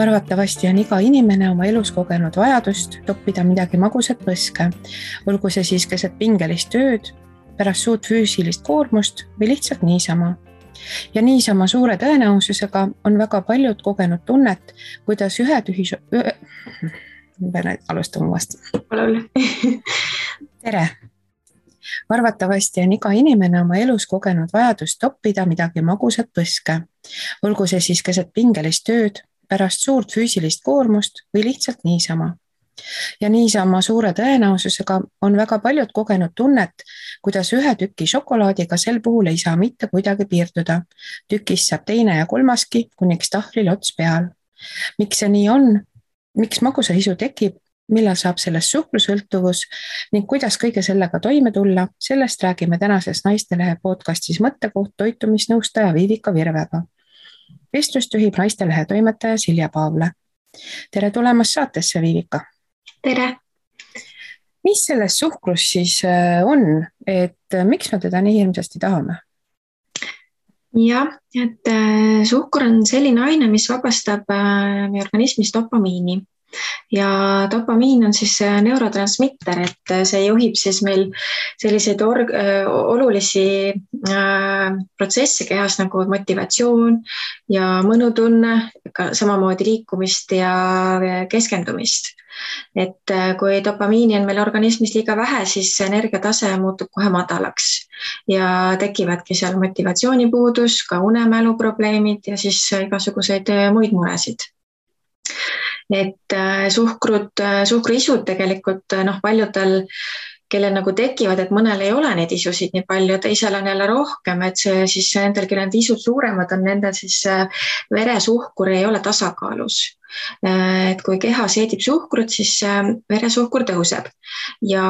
Arvatavasti on iga inimene oma elus kogenud vajadust toppida midagi magusat põske, olgu see siis keset pingelist tööd, pärast suurt füüsilist koormust või lihtsalt niisama. Ja niisama suure tõenäosusega on väga paljud kogenud tunnet, kuidas alustame uuesti. Tere! Arvatavasti on iga inimene oma elus kogenud vajadust toppida midagi magusat põske, olgu see siis keset pingelist tööd, pärast suurt füüsilist koormust või lihtsalt niisama. Ja niisama suure tõenäosusega on väga paljud kogenud tunnet, kuidas ühe tüki šokolaadiga sel puhul ei saa mitte kuidagi piirduda. Tükist saab teine ja kolmaski, kuniks tahvlil ots peal. Miks see nii on? Miks magusa isu tekib? Millal saab sellest suhkrusõltuvus ning kuidas kõige sellega toime tulla? Sellest räägime tänases Naistelehe podcastis Mõttekoht toitumisnõustaja Viivika Virvega. Vestlust juhib Naistelehe toimetaja Silja Paavle. Tere tulemast saatesse, Viivika! Tere! Mis selles suhkrus siis on, et miks me teda nii hirmsasti tahame? Jah, et suhkur on selline aine, mis vabastab meie organismis dopamiini. Ja dopamiin on siis neurotransmitter, et see juhib siis meil selliseid olulisi protsesse kehas nagu motivatsioon ja mõnutunne, samamoodi liikumist ja keskendumist. Et kui dopamiini on meil organismis liiga vähe, siis energiatase muutub kohe madalaks ja tekivadki seal motivatsioonipuudus, ka unemäluprobleemid ja siis igasuguseid muid muresid. Et suhkruisud tegelikult paljudel, kellel nagu tekivad, et mõnel ei ole neid isusid nii palju, teisel on jälle rohkem, et see siis nendel, kellel need isud suuremad on, nendel siis veresuhkur ei ole tasakaalus. Et kui keha seedib suhkrut, siis veresuhkur tõuseb ja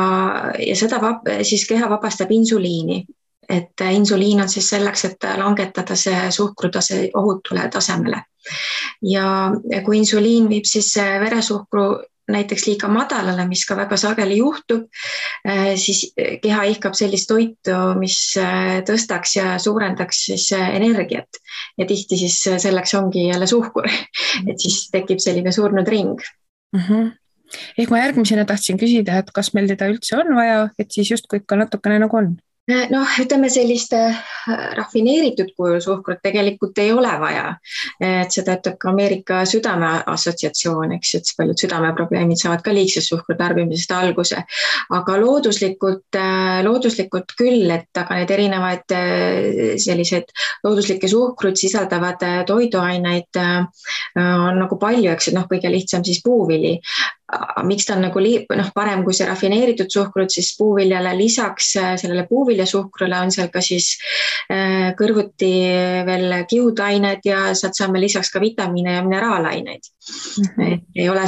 seda siis keha vabastab insuliini. Et insuliin on siis selleks, et langetada see suhkrutase ohutule tasemele. Ja kui insuliin viib siis veresuhkru näiteks liiga madalale, mis ka väga sageli juhtub, siis keha ihkab sellist toitu, mis tõstaks ja suurendaks siis energiat. Ja tihti siis selleks ongi jälle suhkur, et siis tekib selline surnud ring. Ehk ma järgmisena tahtsin küsida, et kas meil teda üldse on vaja, et siis justkui ikka natukene nagu on? Ütleme selliste rafineeritud kujul suhkrut tegelikult ei ole vaja. Et seda ütleb ka Ameerika südameassotsiatsioon, eks, et paljud südameprobleemid saavad ka liigse suhkru tarbimisest alguse. Aga looduslikult küll, et aga need erinevaid sellised looduslikke suhkrut sisaldavad toiduaineid on nagu palju, eks, et kõige lihtsam siis puuvili. Miks ta on nagu parem kui see rafineeritud suhkrut, siis puuviljale lisaks sellele puuviljasuhkrule on seal ka siis kõrvuti veel kihudained ja sealt saame lisaks ka vitamiine ja mineraalaineid. Ei ole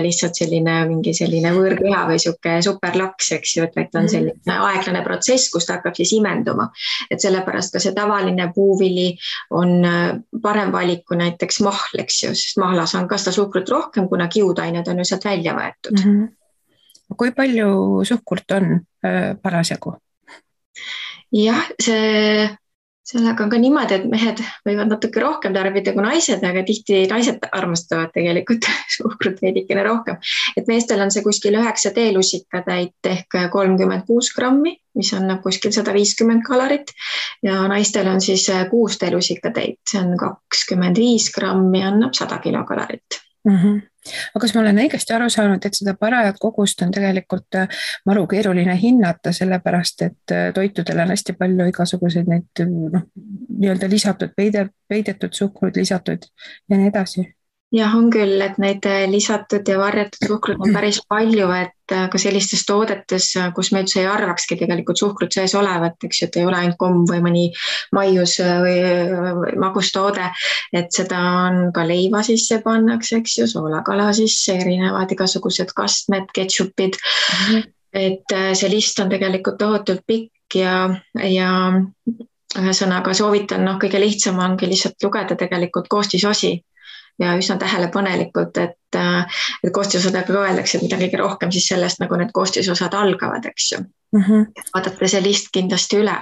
lihtsalt mingi selline võõrkeha või superlaks, eks ju, et on selline aeglane protsess, kus ta hakkab siis imenduma. Et sellepärast ka see tavaline puuvili on parem valik kui näiteks mahl, eks ju, sest mahlas on ka seda suhkrut rohkem, kuna kihudained on ju sealt välja võetud. Kui palju suhkurt on parasjagu? Jah, sellega on ka niimoodi, et mehed võivad natuke rohkem tarbida kui naised, aga tihti naised armastavad tegelikult suhkrut veidikene rohkem. Et meestel on see kuskil 9 teelusikatäit ehk 36 grammi, mis on kuskil 150 kalorit ja naistel on siis 6 teelusikatäit, see on 25 grammi, annab 100 kilokalorit. Aga kas ma olen õigesti aru saanud, et seda parajat kogust on tegelikult maru keeruline hinnata, sellepärast, et toitudel on hästi palju igasuguseid neid nii-öelda lisatud, peidetud suhkrud lisatud ja nii edasi? Jah, on küll, et neid lisatud ja varjatud suhkrut on päris palju, et ka sellistes toodetes, kus me üldse ei arvakski tegelikult suhkrut sees olevat, eks ju, et ei ole ainult komm või mõni maius või magustoode, et seda on ka leiva sisse pannakse, eks ju, soolakala sisse, erinevad igasugused kastmed, ketšupid, et see list on tegelikult tohutult pikk ja ühesõnaga soovitan, kõige lihtsam ongi lihtsalt lugeda tegelikult koostisosi. Ja üsna tähelepanelikult, et koostisosadega ka öeldakse, et mida kõige rohkem siis sellest, nagu need koostisosad algavad, eks ju. vaadata see list kindlasti üle.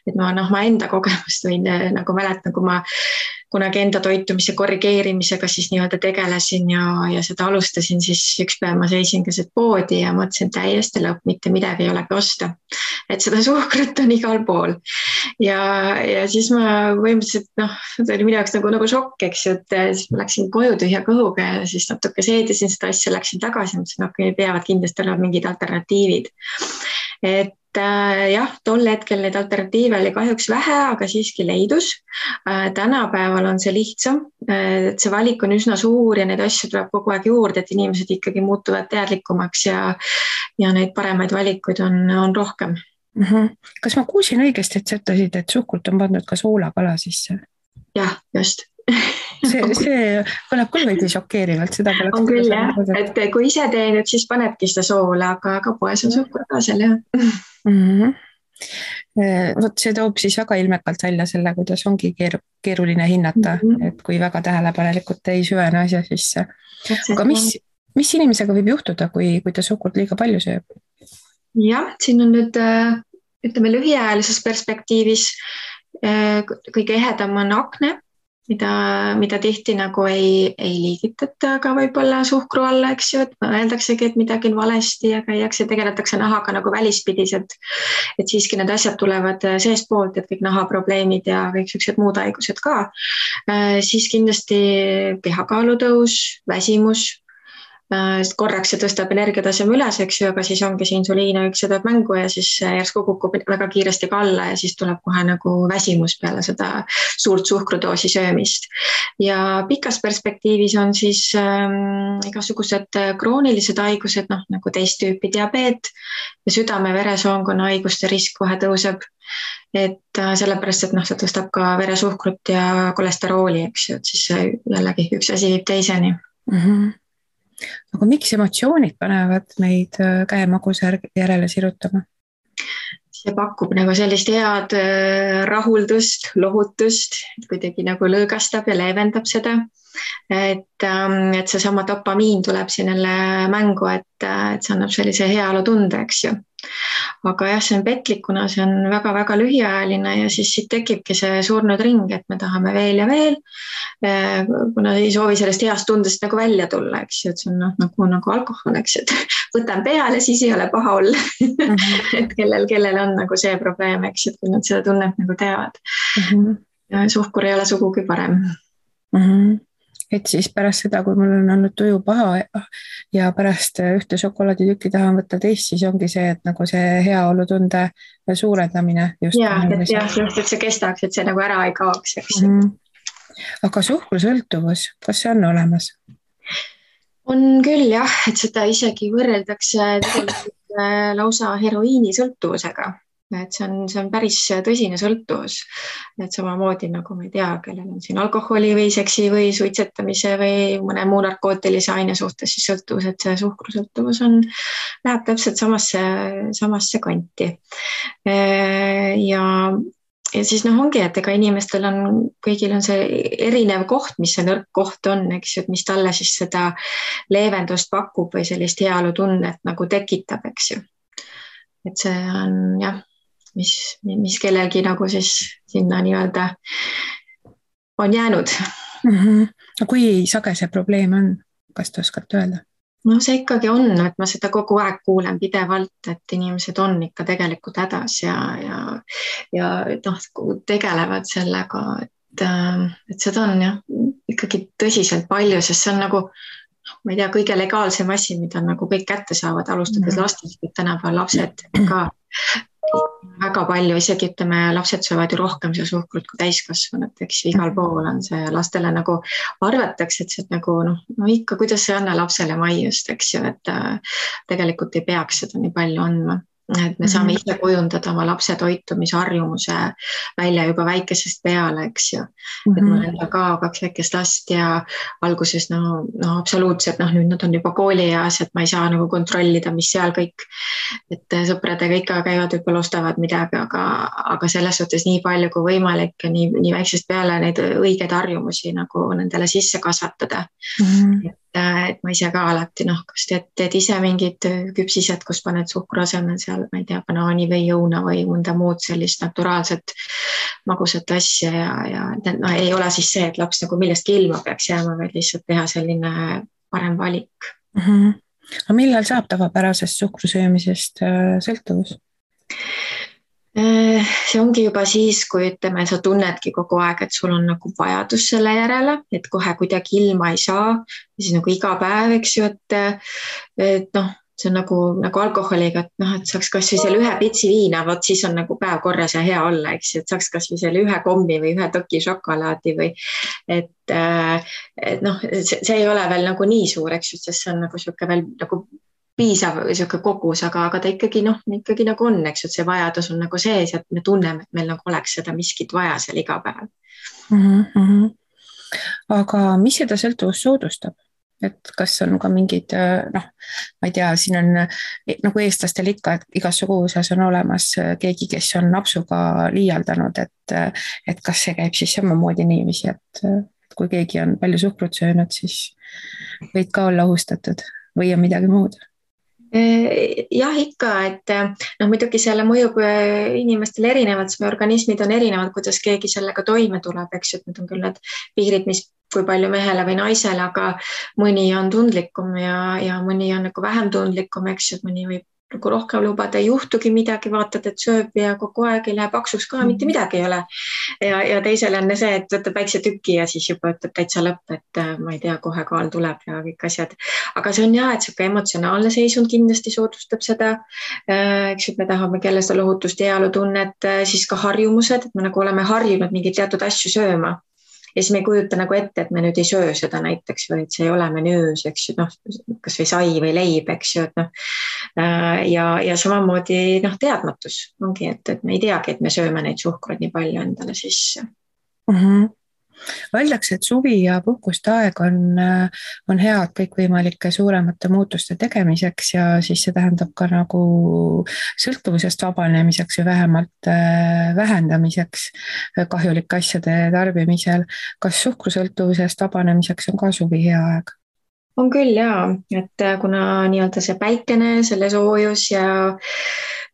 Et ma enda kogemust võin nagu mäletan, kui ma kunagi enda toitumise korrigeerimisega siis nii-öelda tegelesin ja seda alustasin, siis üks päev ma seisin keset poodi ja mõtlesin täiesti lõpp, mitte midagi ei olegi osta. Et seda suhkrut on igal pool. Ja siis ma põhimõtteliselt, see oli minu jaoks nagu šokk, eks ju, et siis ma läksin koju tühja kõhuga ja siis natuke seedisin seda asja, läksin tagasi, mõtlesin, okei, peavad kindlasti olema mingid alternatiivid. Et jah, tol hetkel neid alternatiive oli kahjuks vähe, aga siiski leidus. Tänapäeval on see lihtsam, et see valik on üsna suur ja neid asju tuleb kogu aeg juurde, et inimesed ikkagi muutuvad teadlikumaks ja neid paremaid valikuid on rohkem. Kas ma kuulsin õigesti, et sa ütlesid, et suhkrut on pandud ka soolakala sisse? Jah, just. See kõlab küll veidi šokeerivalt, seda poleks. On küll jah, et kui ise teenid, siis panebki seda soola, aga poes on suhkur ka seal jah. Vot see toob siis väga ilmekalt välja selle, kuidas ongi keeruline hinnata, et kui väga tähelepanelikult ei süvene asja sisse. Aga mis inimesega võib juhtuda, kui ta suhkurt liiga palju sööb? Jah, siin on nüüd, ütleme lühiajalises perspektiivis kõige ehedam on akne, mida tihti nagu ei liigitata ka võib-olla suhkru alla, eks ju, et mõeldaksegi, et midagi on valesti ja käiakse, tegeletakse nahaga nagu välispidiselt, et siiski need asjad tulevad seespoolt, et kõik nahaprobleemid ja kõik sellised muud haigused ka. Siis kindlasti kehakaalu tõus, väsimus, korraks see tõstab energiataseme üles, eks ju, aga siis ongi see insuliiniüks ja tuleb mängu ja siis järsku kukub väga kiiresti ka alla ja siis tuleb kohe nagu väsimus peale seda suurt suhkrudoosi söömist. Ja pikas perspektiivis on siis igasugused kroonilised haigused, nagu teist tüüpi diabeet ja südame-veresoonkonna haiguste risk kohe tõuseb. Et sellepärast, et see tõstab ka veresuhkrut ja kolesterooli, eks ju, et siis jällegi üks asi viib teiseni. Aga miks emotsioonid panevad meid käemagusa järele sirutama? See pakub nagu sellist head rahuldust, lohutust, kuidagi nagu lõõgastab ja leevendab seda. Et see sama dopamiin tuleb siin jälle mängu, et see annab sellise heaolu tunde, eks ju. Aga jah, see on petlik, kuna see on väga-väga lühiajaline ja siis siit tekibki see surnud ring, et me tahame veel ja veel, kuna ei soovi sellest heast tundest nagu välja tulla, eks ju, et see on nagu alkohol, eks ju, et võtan peale, siis ei ole paha olla. Et kellel on nagu see probleem, eks ju, et kui nad seda tunnet nagu teavad. Suhkur ei ole sugugi parem. Et siis pärast seda, kui mul on olnud tuju paha ja pärast ühte šokolaaditükki tahan võtta teist, siis ongi see, et nagu see heaolutunde suurendamine. Et see kestaks, et see nagu ära ei kaoks. Aga suhkrusõltuvus, kas see on olemas? On küll jah, et seda isegi võrreldakse lausa heroiinisõltuvusega. Et see on päris tõsine sõltuvus, et samamoodi nagu ma ei tea, kellel on siin alkoholi või seksi või suitsetamise või mõne muu narkootilise aine suhtes siis sõltuvus, et see suhkrusõltuvus läheb täpselt samasse kanti. Ja siis ongi, et ega inimestel kõigil on see erinev koht, mis see nõrk koht on, eks ju, et mis talle siis seda leevendust pakub või sellist heaolutunnet nagu tekitab, eks ju. Et see on jah, mis kellelgi nagu siis sinna nii-öelda on jäänud. Kui sage see probleem on, kas te oskate öelda? See ikkagi on, et ma seda kogu aeg kuulen pidevalt, et inimesed on ikka tegelikult hädas ja tegelevad sellega, et seda on jah, ikkagi tõsiselt palju, sest see on nagu, ma ei tea, kõige legaalsem asi, mida nagu kõik kätte saavad, alustades lastest, et tänapäeval lapsed ka väga palju, isegi ütleme, lapsed söövad ju rohkem see suhkrut kui täiskasvanud, eks igal pool on see lastele nagu arvatakse, et see nagu ikka, kuidas see anna lapsele maiust, eks ju, et tegelikult ei peaks seda nii palju andma. Et me saame ise kujundada oma lapse toitumisharjumuse välja juba väikesest peale, eks ju. Et mul enda ka 2 väikest last ja alguses absoluutselt, nüüd nad on juba koolieas, et ma ei saa nagu kontrollida, mis seal kõik, et sõpradega ikka käivad võib-olla ostavad midagi, aga selles suhtes nii palju kui võimalik ja nii väiksest peale neid õigeid harjumusi nagu nendele sisse kasvatada. et ma ise ka alati, kas teed ise mingid küpsised, kus paned suhkru asemel seal, ma ei tea, banaani või õuna või mõnda muud sellist naturaalset magusat asja ja ei ole siis see, et laps nagu millestki ilma peaks jääma, vaid lihtsalt teha selline parem valik. Aga millal saab tavapärasest suhkrusöömisest sõltuvus? See ongi juba siis, kui ütleme, sa tunnedki kogu aeg, et sul on nagu vajadus selle järele, et kohe kuidagi ilma ei saa, siis nagu iga päev, eks ju, et see on nagu alkoholiga, et saaks kasvõi selle ühe pitsi viina, vot siis on nagu päev korras ja hea olla, eks ju, et saaks kasvõi selle ühe kommi või ühe toki šokolaadi või et see ei ole veel nagu nii suur, eks ju, sest see on nagu sihuke veel nagu piisav sihuke kogus, aga ta ikkagi nagu on, eks ju, et see vajadus on nagu sees, et me tunneme, et meil nagu oleks seda miskit vaja seal iga päev. Aga mis seda sõltuvust soodustab? Et kas on ka mingid, ma ei tea, siin on nagu eestlastel ikka, et igas suguvõsas on olemas keegi, kes on napsuga liialdanud, et kas see käib siis samamoodi niiviisi, et kui keegi on palju suhkrut söönud, siis võid ka olla ohustatud või on midagi muud? Jah, ikka, et muidugi selle mõjub inimestele erinevalt, sest meie organismid on erinevad, kuidas keegi sellega toime tuleb, eks ju, et need on küll need piirid, mis kui palju mehele või naisele, aga mõni on tundlikum ja mõni on nagu vähem tundlikum, eks ju, et mõni võib nagu rohkem lubada, ei juhtugi midagi, vaatad, et sööb ja kogu aeg ei lähe paksuks ka, mitte midagi ei ole. Ja teisel on see, et võtab väikse tüki ja siis juba ütleb täitsa lõpp, et ma ei tea, kohe kaal tuleb ja kõik asjad. Aga see on et sihuke emotsionaalne seisund kindlasti soodustab seda. Eks ju, me tahame kelle seda lohutust ja heaolutunnet, siis ka harjumused, et me nagu oleme harjunud mingeid teatud asju sööma. Ja siis me ei kujuta nagu ette, et me nüüd ei söö seda näiteks või et see ei ole menüüs, eks ju, kas või sai või leib, eks ju, et ja samamoodi teadmatus ongi, et me ei teagi, et me sööme neid suhkruid nii palju endale sisse. Öeldakse, et suvi ja puhkuste aeg on head kõikvõimalike suuremate muutuste tegemiseks ja siis see tähendab ka nagu sõltuvusest vabanemiseks või vähemalt vähendamiseks kahjulike asjade tarbimisel. Kas suhkrusõltuvusest vabanemiseks on ka suvi hea aeg? On küll jaa, et kuna nii-öelda see päikene, selle soojus ja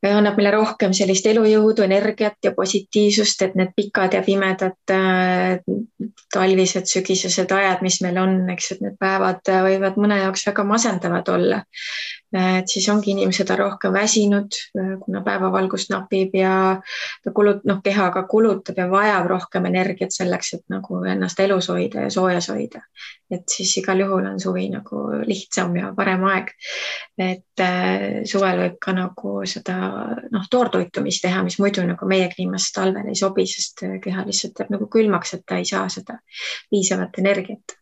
annab meile rohkem sellist elujõudu, energiat ja positiivsust, et need pikad ja pimedad talvised, sügisesed ajad, mis meil on, eks, et need päevad võivad mõne jaoks väga masendavad olla. Et siis ongi inimesed rohkem väsinud, kuna päevavalgust napib ja kehaga kulutab ja vajab rohkem energiat selleks, et nagu ennast elus hoida ja soojas hoida. Et siis igal juhul on suvi nagu lihtsam ja parem aeg. Et suvel võib ka nagu seda toortoitumist teha, mis muidu nagu meie kliimas talvel ei sobi, sest keha lihtsalt jääb nagu külmaks, et ta ei saa seda piisavat energiat.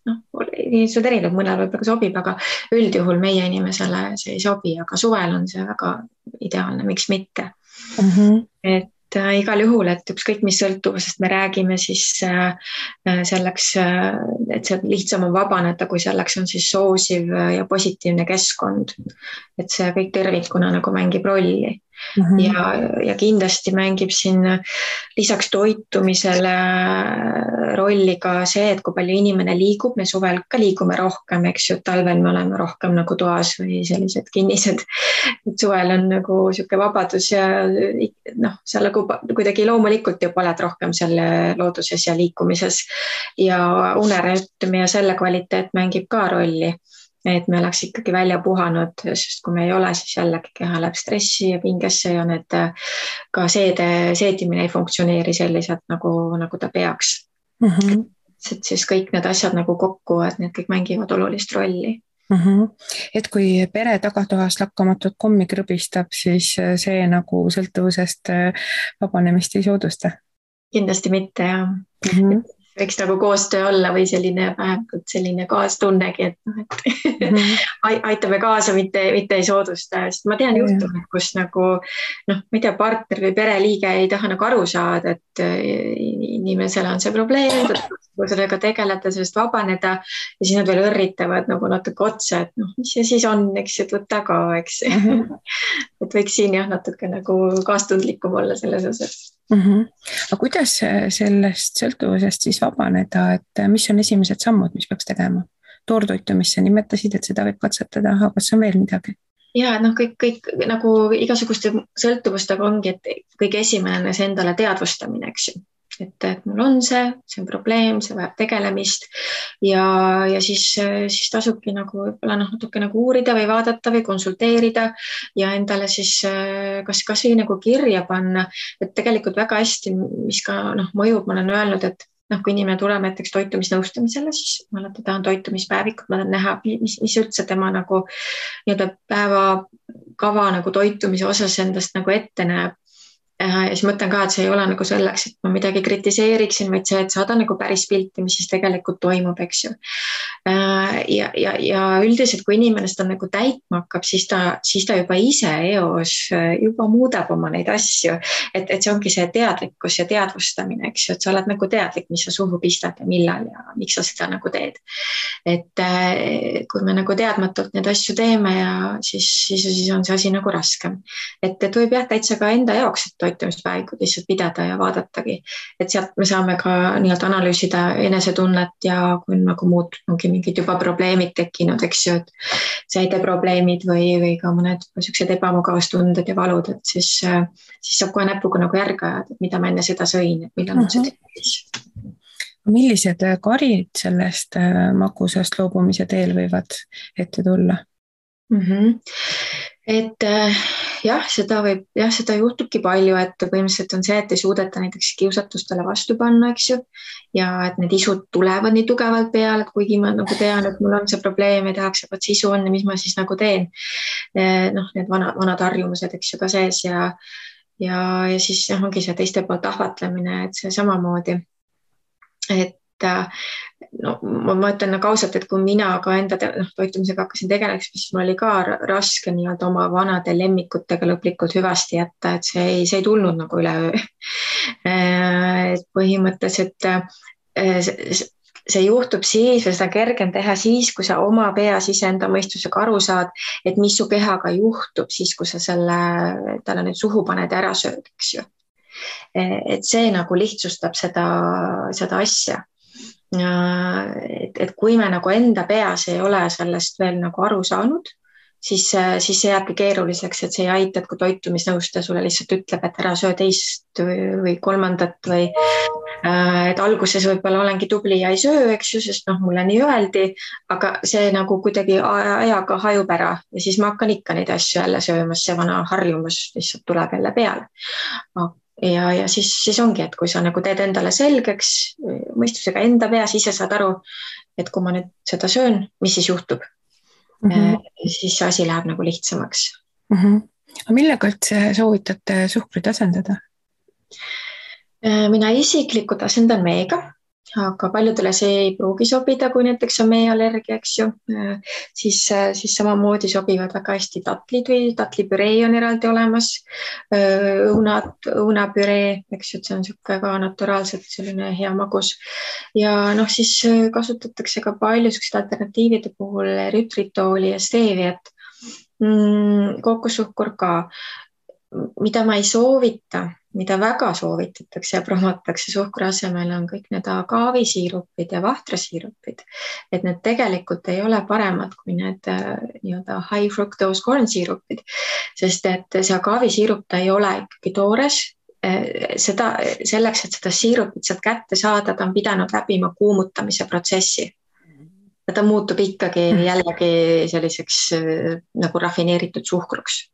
Inimesed erinevad, mõnel võib-olla sobib, aga üldjuhul meie inimesele see ei sobi, aga suvel on see väga ideaalne, miks mitte. Et igal juhul, et ükskõik mis sõltuvusest me räägime, siis selleks, et see lihtsam on vabaneda, kui selleks on siis soosiv ja positiivne keskkond. Et see kõik tervikuna nagu mängib rolli. Ja kindlasti mängib siin lisaks toitumisele rolli ka see, et kui palju inimene liigub, me suvel ka liigume rohkem, eks ju, talvel me oleme rohkem nagu toas või sellised kinnised. Et suvel on nagu sihuke vabadus ja seal nagu kuidagi loomulikult juba oled rohkem selle looduses ja liikumises ja unerütm ja selle kvaliteet mängib ka rolli. Et me oleks ikkagi välja puhanud, sest kui me ei ole, siis jällegi keha läheb stressi ja pingesse ja need ka seedimine ei funktsioneeri selliselt nagu ta peaks. Et siis kõik need asjad nagu kokku, et need kõik mängivad olulist rolli. Et kui pere tagatoas lakkamatut kommi krõbistab, siis see nagu sõltuvusest vabanemist ei soodusta? Kindlasti mitte, jah. Võiks nagu koostöö olla või selline kaastunnegi, et aitame kaasa, mitte ei soodusta. Sest ma tean juhtumid, kus nagu, ma ei tea, partner või pereliige ei taha nagu aru saada, et inimesele on see probleem, sellega tegeleda, sellest vabaneda ja siis nad veel õrritavad nagu natuke otsa, et mis see siis on, eks, et võtta ka, eks. Et võiks siin natuke nagu kaastundlikum olla selles osas. Aga kuidas sellest sõltuvusest siis vabaneda, et mis on esimesed sammud, mis peaks tegema? toortoitumist sa nimetasid, et seda võib katsetada, aga kas on veel midagi? Ja noh, kõik nagu igasuguste sõltuvustega ongi, et kõige esimene see endale teadvustamine, eks ju. Et mul on see on probleem, see vajab tegelemist ja siis tasubki nagu võib-olla natuke nagu uurida või vaadata või konsulteerida ja endale siis kas või nagu kirja panna, et tegelikult väga hästi, mis ka mõjub, ma olen öelnud, et kui inimene tuleb näiteks toitumisnõustamisele, siis ma alati tahan toitumispäevikut, ma tahan näha, mis üldse tema nagu nii-öelda päevakava nagu toitumise osas endast nagu ette näeb. Ja siis mõtlen ka, et see ei ole nagu selleks, et ma midagi kritiseeriksin, vaid see, et saada nagu päris pilti, mis siis tegelikult toimub, eks ju. Ja üldiselt, kui inimene seda nagu täitma hakkab, siis ta juba ise eos juba muudab oma neid asju, et see ongi see teadlikkus ja teadvustamine, eks ju, et sa oled nagu teadlik, mis sa suhu pistad ja millal ja miks sa seda nagu teed. Et kui me nagu teadmatult neid asju teeme ja siis on see asi nagu raskem. Et võib jah täitsa ka enda jaoks, et toitumispäevikud lihtsalt pidada ja vaadatagi, et sealt me saame ka nii-öelda analüüsida enesetunnet ja kui on nagu muud, ongi mingid juba probleemid tekkinud, eks ju, et säideprobleemid või ka mõned sellised ebamugavustunded ja valud, et siis saab kohe näpuga nagu järge ajada, et mida ma enne seda sõin, et millal mul see tekkis. Millised karid sellest magusast loobumise teel võivad ette tulla? Et seda juhtubki palju, et põhimõtteliselt on see, et ei suudeta näiteks kiusatustele vastu panna, eks ju, ja et need isud tulevad nii tugevalt peale, et kuigi ma nagu tean, et mul on see probleem ja tehakse, et see isu on ja mis ma siis nagu teen. Need vanad harjumused, eks ju, ka sees ja siis ongi see teiste poolt ahvatlemine, et see samamoodi, et ma ütlen nagu ausalt, et kui mina ka enda toitumisega hakkasin tegelema, siis mul oli ka raske nii-öelda oma vanade lemmikutega lõplikult hüvasti jätta, et see ei tulnud nagu üleöö. Põhimõtteliselt see juhtub siis või seda kergem teha siis, kui sa oma peas iseenda mõistusega aru saad, et mis su kehaga juhtub siis, kui sa talle nüüd suhu paned ja ära sööd, eks ju. Et see nagu lihtsustab seda asja. Et kui me nagu enda peas ei ole sellest veel nagu aru saanud, siis see jääbki keeruliseks, et see ei aita, et kui toitumisnõustaja sulle lihtsalt ütleb, et ära söö teist või kolmandat või et alguses võib-olla olengi tubli ja ei söö, eks ju, sest mulle nii öeldi, aga see nagu kuidagi ajaga hajub ära ja siis ma hakkan ikka neid asju jälle söömas, see vana harjumus lihtsalt tuleb jälle peale. Ja siis ongi, et kui sa nagu teed endale selgeks mõistusega enda peas, ise saad aru, et kui ma nüüd seda söön, mis siis juhtub, siis see asi läheb nagu lihtsamaks. Millega üldse soovitate suhkrut asendada? Mina isiklikult asendan meega, aga paljudele see ei pruugi sobida, kui näiteks on meeallergia, eks ju, siis samamoodi sobivad väga hästi tatlid või tatlipüree on eraldi olemas, õunapüree, eks ju, et see on niisugune ka naturaalselt selline hea magus ja siis kasutatakse ka palju sellised alternatiivide puhul erytritooli ja steeviat, kookossuhkur ka, mida ma ei soovita, mida väga soovitatakse ja promotakse suhkru asemel on kõik need agaavisiirupid ja vahtrasiirupid, et need tegelikult ei ole paremad kui need nii-öelda high fructose corn siirupid, sest et see agaavisiirup ta ei ole ikkagi toores, selleks, et seda siirupit sealt kätte saada, ta on pidanud läbima kuumutamise protsessi. Ta muutub ikkagi jällegi selliseks nagu rafineeritud suhkruks.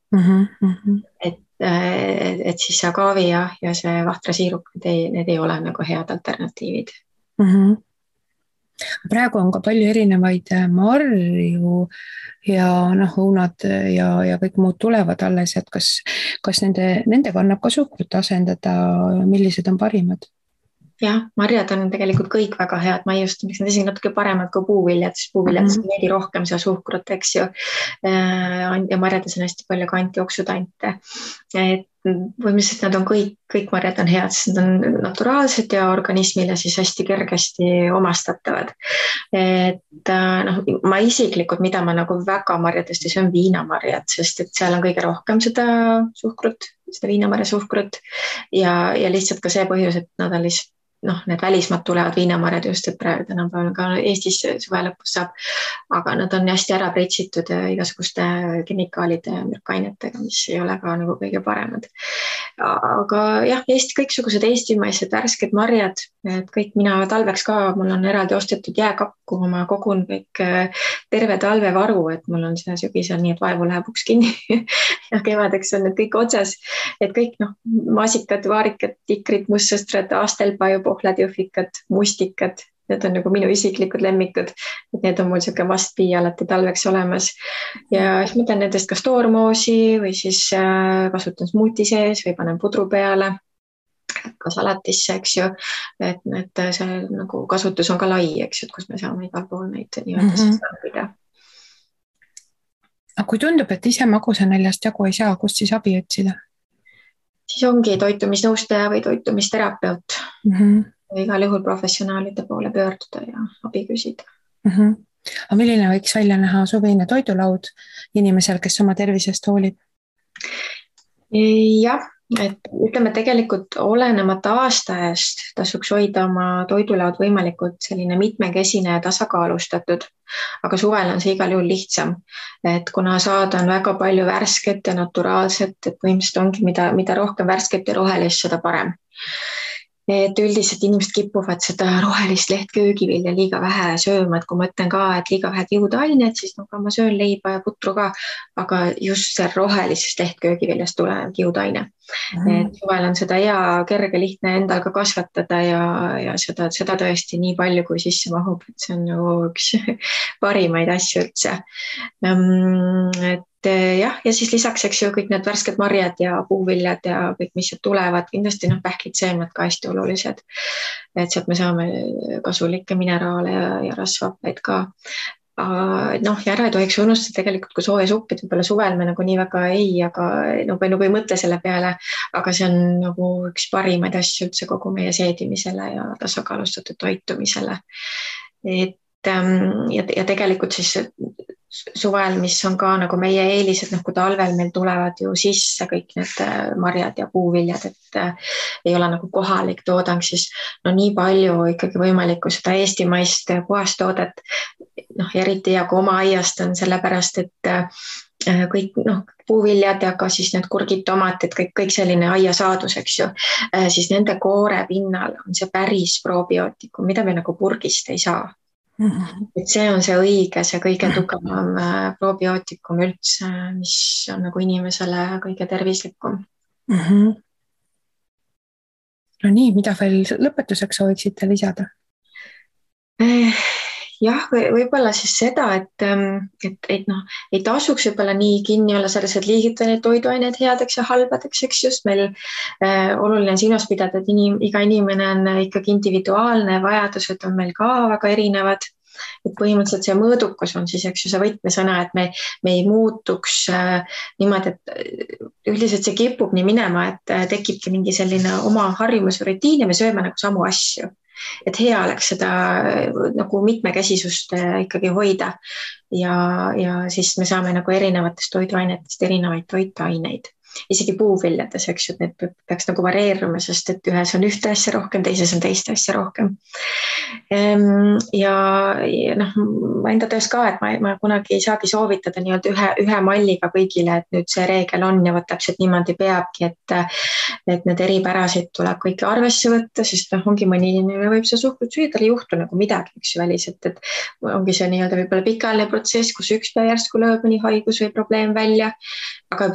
Et siis see agaavi ja see vahtrasiirup, need ei ole nagu head alternatiivid. Praegu on ka palju erinevaid marju ja õunad ja kõik muud tulevad alles, et kas nendega annab ka suhkrut asendada, millised on parimad? Jah, marjad on tegelikult kõik väga head maiustamiseks, need isegi natuke paremad kui puuviljad, sest puuviljad on veidi rohkem seda suhkrut, eks ju. Ja marjades on hästi palju ka antioksudante. Põhimõtteliselt nad on kõik marjad on head, sest nad on naturaalsed ja organismile siis hästi kergesti omastatavad. Ma isiklikult, mida ma nagu väga marjadest ei söön viinamarjad, sest et seal on kõige rohkem seda suhkrut, seda viinamarja suhkrut ja lihtsalt ka see põhjus, et nad on lihtsalt need välismaad tulevad viinamarjad just, et praegu tänapäeval ka Eestis suve lõpus saab, aga nad on hästi ära pritsitud igasuguste kemikaalide ja mürkainetega, mis ei ole ka nagu kõige paremad. Aga jah, kõiksugused eestimaised värsked marjad, et kõik mina talveks ka, mul on eraldi ostetud jääkapp, kuhu ma kogun kõik terve talvevaru, et mul on see sügisel nii, et vaevu läheb uks kinni ja kevadeks on need kõik otsas, et kõik maasikad, vaarikad, tikrid, mustsõstrad, astelpaju, pohlad, jõhvikad, mustikad, need on nagu minu isiklikud lemmikud, et need on mul siuke must be alati talveks olemas ja siis ma teen nendest kas toormoosi või siis kasutan smuuti sees või panen pudru peale, ka salatisse, eks ju, et see nagu kasutus on ka lai, eks ju, et kus me saame igal pool neid nii-öelda tarbida. Aga kui tundub, et ise magusaneljast jagu ei saa, kust siis abi otsida? Siis ongi toitumisnõustaja või toitumisterapeut. Igal juhul professionaalide poole pöörduda ja abi küsida. Aga milline võiks välja näha suvine toidulaud inimesel, kes oma tervisest hoolib? Jah, et ütleme tegelikult olenemata aastaajast tasuks hoida oma toidulaud võimalikult selline mitmekesine ja tasakaalustatud, aga suvel on see igal juhul lihtsam, et kuna saada on väga palju värsket ja naturaalset, et põhimõtteliselt ongi mida rohkem värsket ja rohelist, seda parem. Et üldiselt inimesed kipuvad seda rohelist lehtköögivilja liiga vähe sööma, et kui ma ütlen ka, et liiga vähe kiudainet, siis ma söön leiba ja putru ka, aga just see rohelisest lehtköögiviljast tulev kiudaine. Et suvel on seda hea, kerge, lihtne endal ka kasvatada ja seda tõesti nii palju, kui sisse mahub, et see on nagu üks parimaid asju üldse. Et jah, ja siis lisaks, eks ju, kõik need värsked marjad ja puuviljad ja kõik, mis sealt tulevad, kindlasti pähklid, seemned ka hästi olulised. Et sealt me saame kasulikke mineraale ja rasvhappeid ka. Ja ära ei tohiks unustada tegelikult, kui sooja suppid võib-olla suvel me nagu nii väga aga nagu ei mõtle selle peale, aga see on nagu üks parimaid asju üldse kogu meie seedimisele ja tasakaalustatud toitumisele. Ja tegelikult siis suvel, mis on ka nagu meie eelised, kui talvel meil tulevad ju sisse kõik need marjad ja puuviljad, et ei ole nagu kohalik toodang, siis nii palju ikkagi võimalikku seda eestimaist puhast toodet, eriti ja kui oma aiast on sellepärast, et kõik puuviljad ja ka siis need kurgid, tomatid, kõik selline aiasaadus, eks ju, siis nende koore pinnal on see päris probiootikum, mida me nagu purgist ei saa. Et see on see õige, see kõige tugevam probiootikum üldse, mis on nagu inimesele kõige tervislikum. No nii, mida veel lõpetuseks sooviksite lisada? Jah, võib-olla siis seda, et ei tasuks võib-olla nii kinni olla selles, et liigita neid toiduaineid headeks ja halbadeks, eks just meil oluline on silmas pidada, et iga inimene on ikkagi individuaalne, vajadused on meil ka väga erinevad. Et põhimõtteliselt see mõõdukus on siis, eks ju, see võtmesõna, et me ei muutuks niimoodi, et üldiselt see kipub nii minema, et tekibki mingi selline oma harjumus või rutiin ja me sööme nagu samu asju. Et hea oleks seda nagu mitmekesisust ikkagi hoida ja siis me saame nagu erinevatest toiduainetest erinevaid toitaineid. Isegi puuviljades, eks ju, et need peaks nagu vareeruma, sest et ühes on ühte asja rohkem, teises on teist asja rohkem. Ja ma enda töös ka, et ma kunagi ei saagi soovitada nii-öelda ühe malliga kõigile, et nüüd see reegel on ja võt täpselt niimoodi peabki, et need eripärasid tuleb kõiki arvesse võtta, sest ongi mõni inimene võib see suhkrut süüa, tal ei juhtu nagu midagi, eks ju, väliselt, et ongi see nii-öelda võib-olla pikaajaline protsess, kus üks päev järsku lööb mõni haigus või probleem välja, aga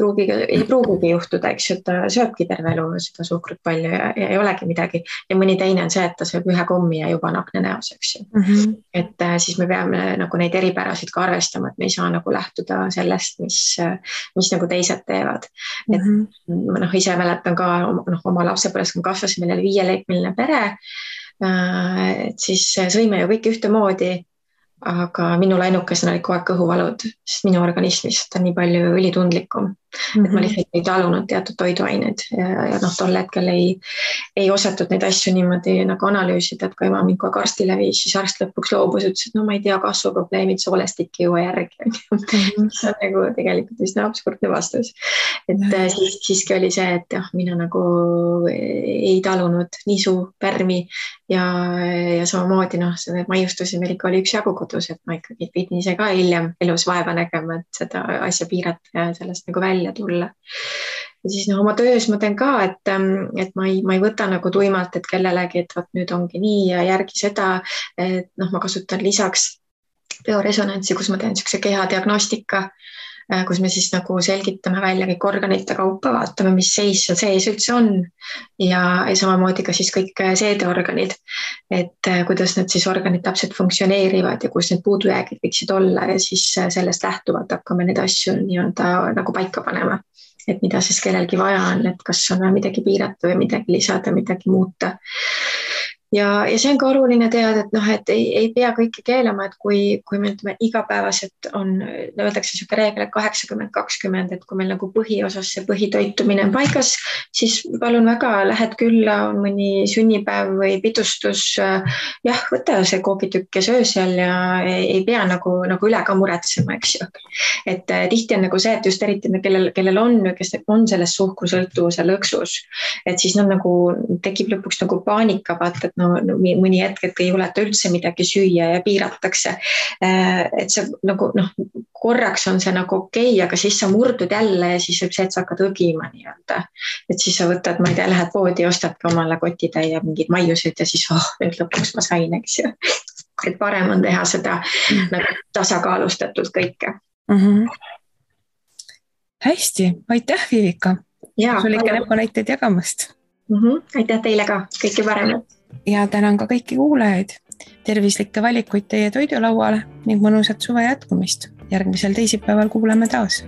ei pruugigi juhtuda, eks ju, et ta sööbki terve elu seda suhkrut palju ja ei olegi midagi. Ja mõni teine on see, et ta sööb ühe kommi ja juba on akne näos, eks ju. Et siis me peame nagu neid eripärasid ka arvestama, et me ei saa nagu lähtuda sellest, mis nagu teised teevad. Et ise mäletan ka oma lapsepõlves, kui kasvasime meil 5-liikmeline pere, et siis sõime ju kõik ühtemoodi, aga minul ainukesena oli kogu aeg kõhuvalud, sest minu organismist on nii palju ülitundlikum, et ma lihtsalt ei talunud teatud toiduaineid ja tol hetkel ei osatud neid asju niimoodi nagu analüüsida, et kui ema mind kogu arstile viis, siis arst lõpuks loobus, ütles, et no ma ei tea, kasvuprobleemid, soolestik ei jõua järgi. See on nagu tegelikult üsna absurdne vastus. Et siiski oli see, et mina nagu ei talunud nisu, pärmi ja samamoodi need maiustusi meil ikka oli üksjagu kodus, et ma ikkagi pidin ise ka hiljem elus vaeva nägema, et seda asja piirata ja sellest nagu välja tulla. Ja siis oma töös ma teen ka, et ma ei võta nagu tuimalt, et kellelegi, et nüüd ongi nii ja järgi seda, et ma kasutan lisaks bioresonantsi, kus ma teen siukse kehadiagnostika, kus me siis nagu selgitame välja kõik organite kaupa, vaatame, mis seis seal sees üldse on ja samamoodi ka siis kõik seedeorganid, et kuidas need siis organid täpselt funktsioneerivad ja kus need puudujäägid võiksid olla ja siis sellest lähtuvalt hakkame neid asju nii-öelda nagu paika panema, et mida siis kellelgi vaja on, et kas on midagi piirata või midagi lisada, midagi muuta. Ja see on ka oluline teada, et ei pea kõike keelama, et kui me ütleme igapäevaselt on, öeldakse siuke reegel, et 80-20, et kui meil nagu põhiosas see põhitoitumine on paigas, siis palun väga, lähed külla, on mõni sünnipäev või pidustus, jah, võta see koogitükk ja söö seal ja ei pea nagu üle ka muretsema, eks ju. Et tihti on nagu see, et just eriti kellel on, kes on selles suhkrusõltuvuse lõksus, et siis nagu tekib lõpuks nagu paanika, vaata, et mõni hetk, et ei juleta üldse midagi süüa ja piiratakse. Et see nagu korraks on see nagu okei, aga siis sa murdud jälle ja siis võib see, et sa hakkad õgima nii-öelda. Et siis sa võtad, ma ei tea, lähed poodi, ostadki omale kotitäie mingid maiused ja siis nüüd lõpuks ma sain, eks ju. Et parem on teha seda nagu tasakaalustatult kõike. Hästi, aitäh, Vivika. Sul ikka näpunäiteid jagamast. Aitäh teile ka, kõike paremat. Ja tänan ka kõiki kuulajaid. Tervislikke valikuid teie toidulauale ning mõnusat suve jätkumist. Järgmisel teisipäeval kuuleme taas.